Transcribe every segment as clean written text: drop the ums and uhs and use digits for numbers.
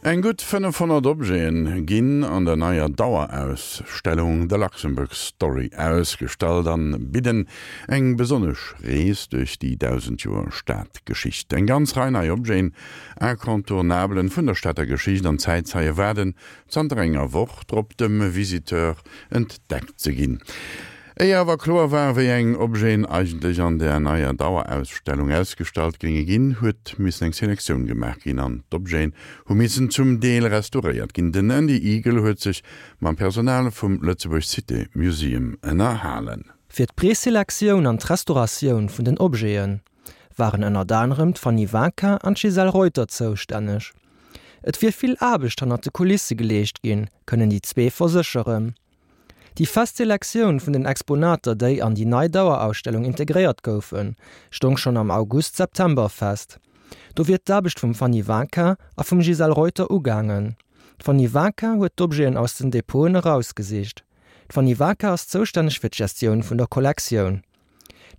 Eng gutt 500 Objete ginn an der neier Dauerausstellung The Luxembourg Story ausgestallt an bidden eng besonnesch Rees duerch déi 1.000 Joer Stadgeschicht. Eng ganz Rei nei Objeten, Incontournabelen vun der Stater Geschicht an Zäitzeie waarden zanter enger Woch drop dem Visiteur entdeckt ze ginn. Éier awer kloer war, wéi eng Objeten eigentlech an der neier Dauerausstellung ausgestallt géinge ginn, huet missen eng Selektioun gemaach ginn an d'Objeten hu missen zum Deel restauréiert ginn. Den Andy Eagle huet sech mam Personal vum Lëtzebuerg Cité Museum ënnerhalen. Fir d'Preselektioun an d'Restauratioun vun den Objete waren ënnert anerem d'Fanny Vinquin an d'Gisèle Reuter zoustänneg. Et wier vill Aarbecht hannert de Kulisse geleescht ginn, kënnen déi zwee versécheren. Déi fest Selektioun vun den Exponater, déi an déi nei Dauerausstellung integréiert goufen, stong schonn am August-September fest. Do wier d'Aarbecht vum Fanny Vinquin a vum Gisèle Reuter ugaangen. D'Fanny Vinquin huet d'Objeten aus den Depoten erausgesicht. D'Fanny Vinquin ass zoustänneg fir d'Gestioun vun der Kollektioun.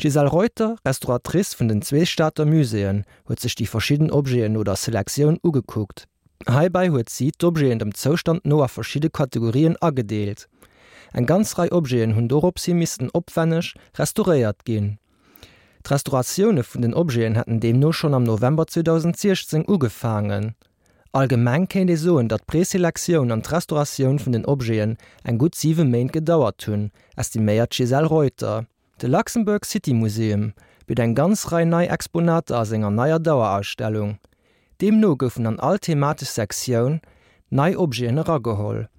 D'Gisèle Reuter, Restauratrice vun den zwee Stater Muséeën, huet sech déi verschidden Objeten no der Selektioun ugekuckt. Heibäi huet si d'Objeten dem Zoustand no a verschidde Kategorien agedeelt. Eng ganz Rei Objeten hunn dorops hi missten opwänneg restauréiert ginn. D'Restauratioune vun den Objeten hätten deemno schonn am November 2016 ugefaangen. Allgemeng kéint ee soen, datt d'Preselektioun an d'Restauratioun vun den Objeten eng gutt siwe Méint gedauert hunn, estiméiert d'Gisèle Reuter. De Luxembourg City Museum bitt eng ganz Rei nei Exponater a senger neier Dauerausstellung. Deemno goufen an all thematesch Sektioun nei Objeten erageholl.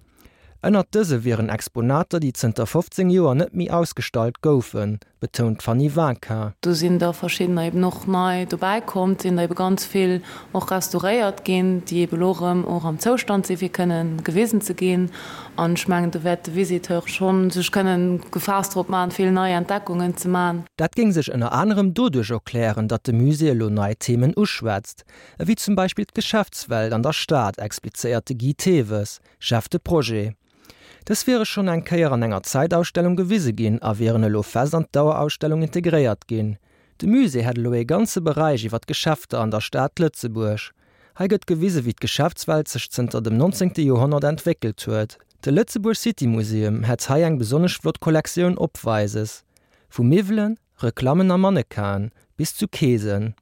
Ënnert dëse wieren Exponater, déi zënter 15 Joer net méi ausgestallt goufen, betount d'Fanny Vinquin. Do sinn der verschiddener eben och nei dobäi komm, et sinn der ebe ganz vill och restauréiert ginn, déi ebe elo erëm och am Zoustand sinn, fir kënnen gewisen ze ginn. An ech mengen, do wäert de Visiteur schonn sech kënnen gefaasst drop maachen, vill nei Entdeckungen ze maachen. Dat géing sech ënner anerem doduerch erklären, datt de Musée elo nei Themen uschwätzt, ewéi zum Beispill d'Geschäftswelt an der Stad, explizéiert de Guy Thewes. Chef de Projet. Dës wiere schonn eng Kéier an enger Zäitausstellung gewise ginn a wieren elo fest an d'Dauerausstellung integréiert ginn. De Musée hätt elo ee ganze Beräich iwwer d'Geschäfter an der Stad Lëtzebuerg. Hei gëtt gewise wéi d'Geschäftswelt sech zënter dem 19. Joerhonnert entwéckelt huet. De Lëtzebuerg City Museum hätt hei eng besonnesch flott Kollektioun opweises, vu Miwwelen, Reklammen a Mannequinen bis zu Keesen.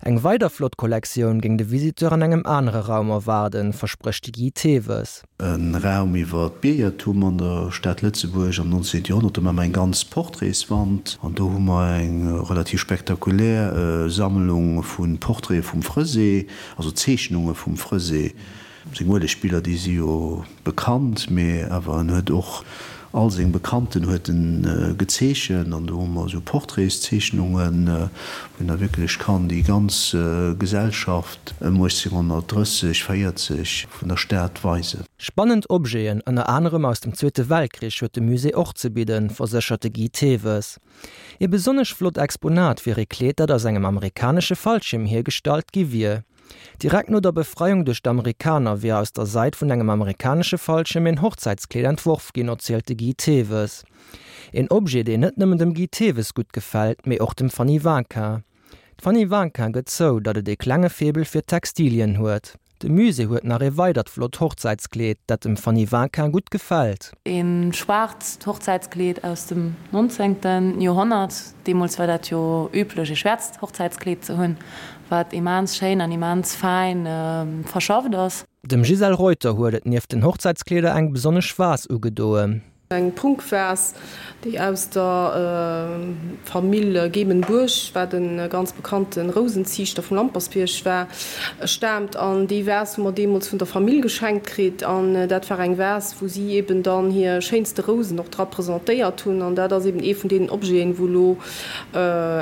Eng weider flott Kollektioun géing de Visiteur an engem anere Raum erwaarden, versprécht de Guy Thewes. E Raum iwwer d'Biergertum an der Stad Lëtzebuerg am 19. Joerhonnert. Do maache mer eng ganz Portraitswand an do hu mer eng relativ spektakulär Sammlung vu Portraite vum Fresé, also Zeechnunge vum Fresé. Seng Uelegbiller, déi si jo bekannt, mee awer en huet och all seng Bekannten huet en gezeechent an do hu mer esou Portraitszeechnungen, wou een da wierklech kann déi ganz Gesellschaft ëm 1830, 40 vun der Stad weisen. Spannend Objeten, ënner anerem aus dem Zweete Weltkrich, huet de Musée och ze bidden, verséchert de Guy Thewes. Ee besonnesch flott Exponat wier ee Kleed, dat aus engem amerikanesche Fallschierm hiergestallt gi wier. Direkt no der Befreiung duerch d'Amerikaner wier aus der Seid vun engem amerikanesche Fallschierm een Hochzäitskleed entworf ginn, erzielt de Guy Thewes. Een Objet, deen net nëmmen dem Guy Thewes gutt gefält, mee och dem Fanny Vinquin. D'Fanny Vinquin gëtt zou, datt et ee klenge Faible fir Textilien huet. De Musée huet nach ee weidert flott Hochzäitskleed, dat dem Fanny Vinquin gutt gefält. Ee schwaarzt Hochzäitskleed aus dem 19. Joerhonnert. Deemools war dat jo üblech, ee schwäerzt Hochzäitskleed ze hunn, wat immens schéin an immens fäin verschafft ass. Dem Gisèle Reuter huet et nieft den Hochzäitskleeder eng besonnesch Vase ugedoen. Eng Prunkvas, déi aus der Famill Gemen-Bourg, wat e ganz bekannte Rousenziichter vum Lampersbierg war, staamt. An déi Vas hu mer deemools vun der Famill geschenkt kritt. An dat war eng Vas, wou si eben dann hir schéinste Rousen och dra presentéiert hunn. An dat ass eben ee vun deenen Objeten, wou elo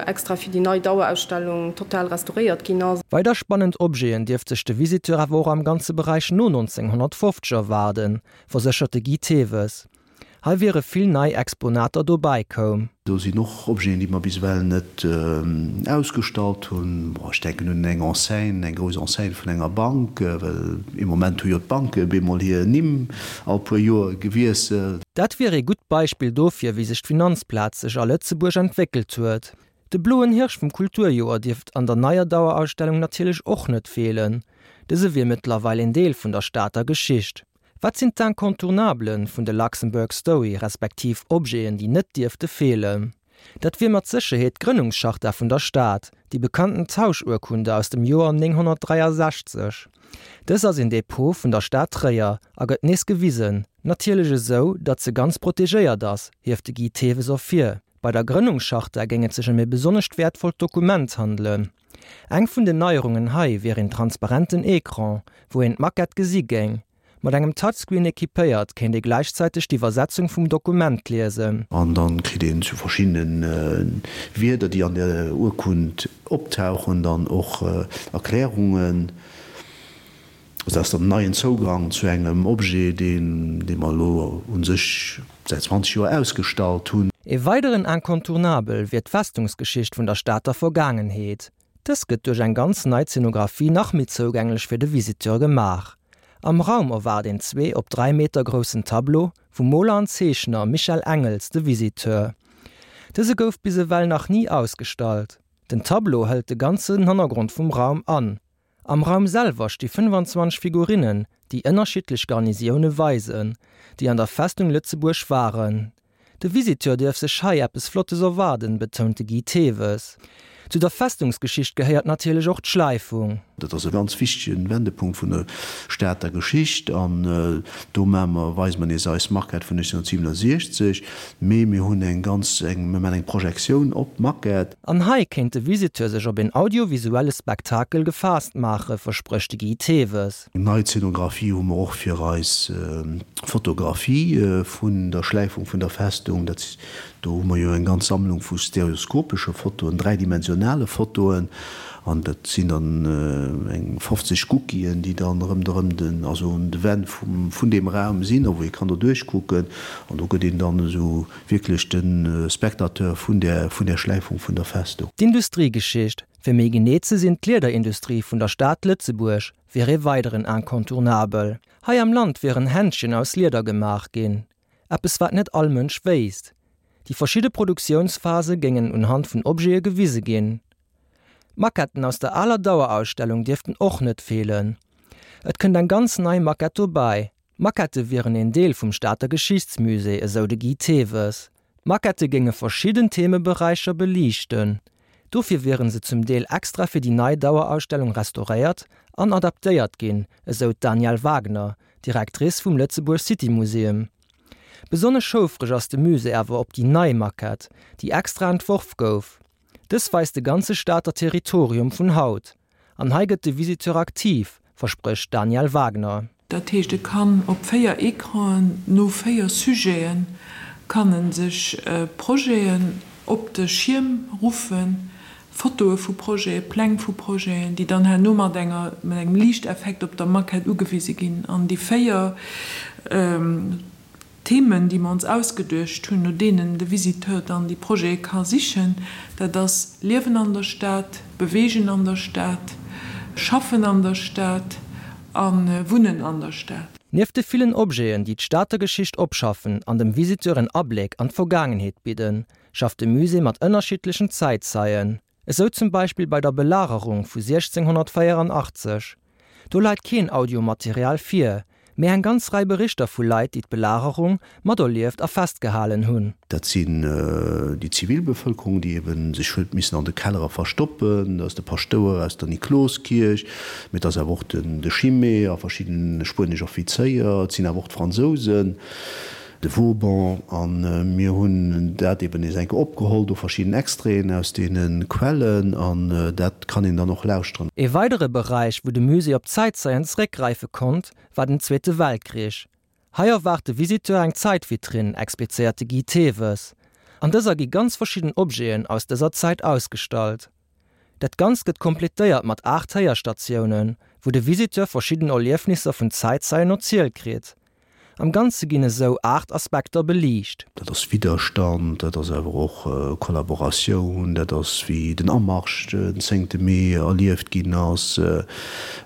extra fir déi nei Dauerausstellung total restauréiert ginn ass. Weider spannend Objeten dierft sech de Visiteur awer och am ganze Beräich no 1950 erwaarden, verséchert de Guy Thewes. Hei wiere vill nei Exponater dobäi koum. Do sinn och Objeten, déi mer bis ewell net ausgestallt hunn. Bon, ech denken un eng Enseigne, eng grouss Enseigne vun enger Bank, well ee Moment hu jo d'Banke bemol hir Nimm all puer Joer gewiesselt. Dat wier ee gutt Beispill dofir, wéi sech d'Finanzplaz sech a Lëtzebuerg entwéckelt huet. De bloen Hirsch vum Kulturjoer dierft an der neier Dauerausstellung natierlech och net feelen. Dëse wier mëttlerweil een Deel vun der Stater Geschicht. Wat sinn d'Incontournablen vun de Luxembourg Story, respektiv Objeten, déi net dierfte feelen? Dat wier mat Sécherheet d'Grënnungscharta vun der Stad, déi bekannten Tauschurkunde aus dem Joer 963. Dës ass een Depot vun der Stad Tréier a gëtt nees gewisen, natierlech esou, datt se ganz protegéiert ass, hieft de Guy Thewes ervir. Bei der Grënnungscharta géing et sech ëm e besonnescht wäertvollt Dokument handelen. Eng vun den Neierungen hei wier een transparenten Ecran, wou een d'Maquette gesi géing. Mat engem Touchscreen equipéiert, kéint ee gläichzäiteg d'Iwwersetzung vum Dokument liesen. An dann kritt een zu verschiddenen Wierder, déi an der Urkund optauchen, dann och Erklärungen. Also dat ass dann en neien Zougang zu engem Objet, deen dee mer elo u sech säit 20 Joer ausgestallt hunn. E weideren Incontournabel wier d'Festungsgeschicht vun der Stater Vergaangenheet. Dës gëtt duerch eng ganz nei Zenographie nach méi zougänglech fir de Visiteur gemaach. Am Raum erwaart een zwee op 3 Meter groussen Tableau vum Moler an Zeechner Michel Engels de Visiteur. Dëse gouf bis ewell nach ni ausgestallt. Den Tableau hëlt de ganzen Hannergrond vum Raum an. Am Raum selwer sti 25 Figurinnen, déi ënnerschiddlech Garnisioune weisen, déi an der Festung Lëtzebuerg waren. De Visiteur duerf sech hei eppes Flottes erwaarden, betount de Guy Thewes. Zu der Festungsgeschicht gehéiert natierlech och d'Schläifung. Dat ass e ganz wichtege Wendepunkt vun der Stater Geschicht an do maache mer, weise mer nees eis Maquette vun 1967, mee mir hunn eng ganz, eng, mir maachen eng Projektioun op d'Maquette. An hei kéint de Visiteur sech op een audiovisuelle Spektakel gefaasst maachen, versprécht de Guy Thewes. Eng nei Zeenografie hu mer och fir eis Fotografie vun der Schläifung vun der Festung. Dat, do hu mer jo eng ganz Sammlung vu stereoskopesche Fotoen, dräidimensionale Fotoen, an dat sinn dann eng 50 Guckien, déi dann rëmderëm den, also un de Wänn vum, vun deem Raum sinn, a wou ee kann doduerch kucken. An do gëtt een dann esou wierklech de Spectateur vun där, vun där Schläifung vun der Festung. D'Industriegeschicht, fir méi genee ze sinn d'Liederindustrie vun der Stad Lëtzebuerg, wier ee weideren Incontournabel. Hei am Land wieren Händschen aus Lieder gemaach ginn, eppes wat net all Mënsch wéisst. Déi verschidde Produktiounsphase géingen unhand vun Objete gewise ginn. D'Maquetten aus der aler Dauerausstellung dierften och net feelen. Et kënnt eng ganz nei Maquette dobäi, D'Maquettë wieren een Deel vum Stater Geschichtsmusée, esou de Guy Thewes. D'Maquettë géinge verschidden Themeberäicher beliichten. Dofir wiere se zum Deel extra fir déi nei Dauerausstellung restauréiert an adaptéiert ginn, esou d'Danièle Wagner, Directrice vum Lëtzebuerg City Museum. Besonnesch houfreg ass de Musée awer op déi nei Maquette, déi extra entworf gouf. Dës weist de ganze Stater Territorium vun haut. An hei gëtt de Visiteur aktiv, versprécht d'Danièle Wagner. Dat heescht, e kann op 4 Ecranen no 4 Sujeten kann e sech Projeten op de Schierm ruffen, Fotoe vu Projeten, Pläng vu Projeten, déi dann herno mat enger mat engem Liichteffekt op der Maquette ugewise ginn. An déi 4 Themen, déi mer ons ausgeduecht hunn, no deenen de Visiteur dann déi Projete ka sichen, dat ass Liewen an der Stad, Bewegen an der Stad, Schaffen an der Stad a Wunnen an der Stad. Nieft de villen Objeten, déi d'Stater Geschicht opschaffen an dem Visiteur en Abléck an d'Vergaangenheet bidden, schafft de Musée mat ënnerschiddlechen Zäitzeien. Esou zum Beispill bei der Belagerung vu 1684. Do leit keen Audiomaterial vir, mee eng ganz Rei Berichter vu Leit, déi d'Belagerung materlieft a festgehalen hunn. Dat sinn déi Zivilbevëlkerung, déi ebe sech huet missen an de Kellere verstoppen, dat ass de Paschtouer aus der Nikloskierch, mee et ass awer och de Chimay a verschidden spuenesch Offizéier, et sinn awer och d'Fransousen. De Vauban, a mir hunn dat eben nees eng Kéier opgeholl, do verschidden Extraiten aus deene Quellen, an dat kann een dann och lauschteren. Ee weidere Beräich, wou de Musée op Zäitzeien zeréckgräife konnt, war den Zweete Weltkrich. Hei erwaart de Visiteur eng Zäitvitrinn, explizéiert de Guy Thewes. An dëser gi ganz verschidden Objeten aus dëser Zäit ausgestallt. Dat Ganzt gëtt kompletéiert mat 8 Héierstatiounen, wou de Visiteur verschidden Erliefnisser vun Zäitzeien erzielt kritt. Am Ganze ginn esou 8 Aspekter beliicht. Dat ass Widderstand, dat ass awer och Kollaboratioun, dat ass wéi den Amarsch den zéngte Mee erlieft ginn ass,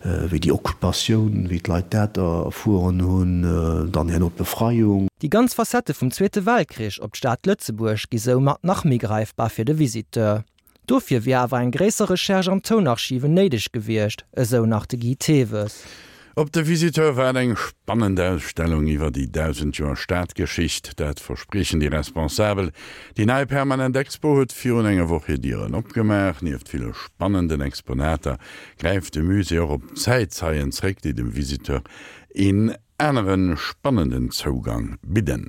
wéi déi Occupatioun, wéi d'Leit dat erfueren hunn, dann herno d'Befreiung. Déi ganz Facette vum Zweete Weltkrich op d'Stad Lëtzebuerg gi soumat nach méi gräifbar fir de Visiteur. Dofir wier awer eng gréisser Recherche an Tounarchiven néideg gewiescht, esou nach de Guy Thewes. Op de Visiteur waart eng spannend Ausstellung iwwer déi 1.000 Joer Stadgeschicht. Dat verspriechen déi Responsabel. Déi nei permanent Expo huet virun enger Woch hir Dieren opgemaach. Nieft ville spannenden Exponater gräift de Musée och op Zäitzeien zréck, déi dem Visiteur een anere spannenden Zougang bidden.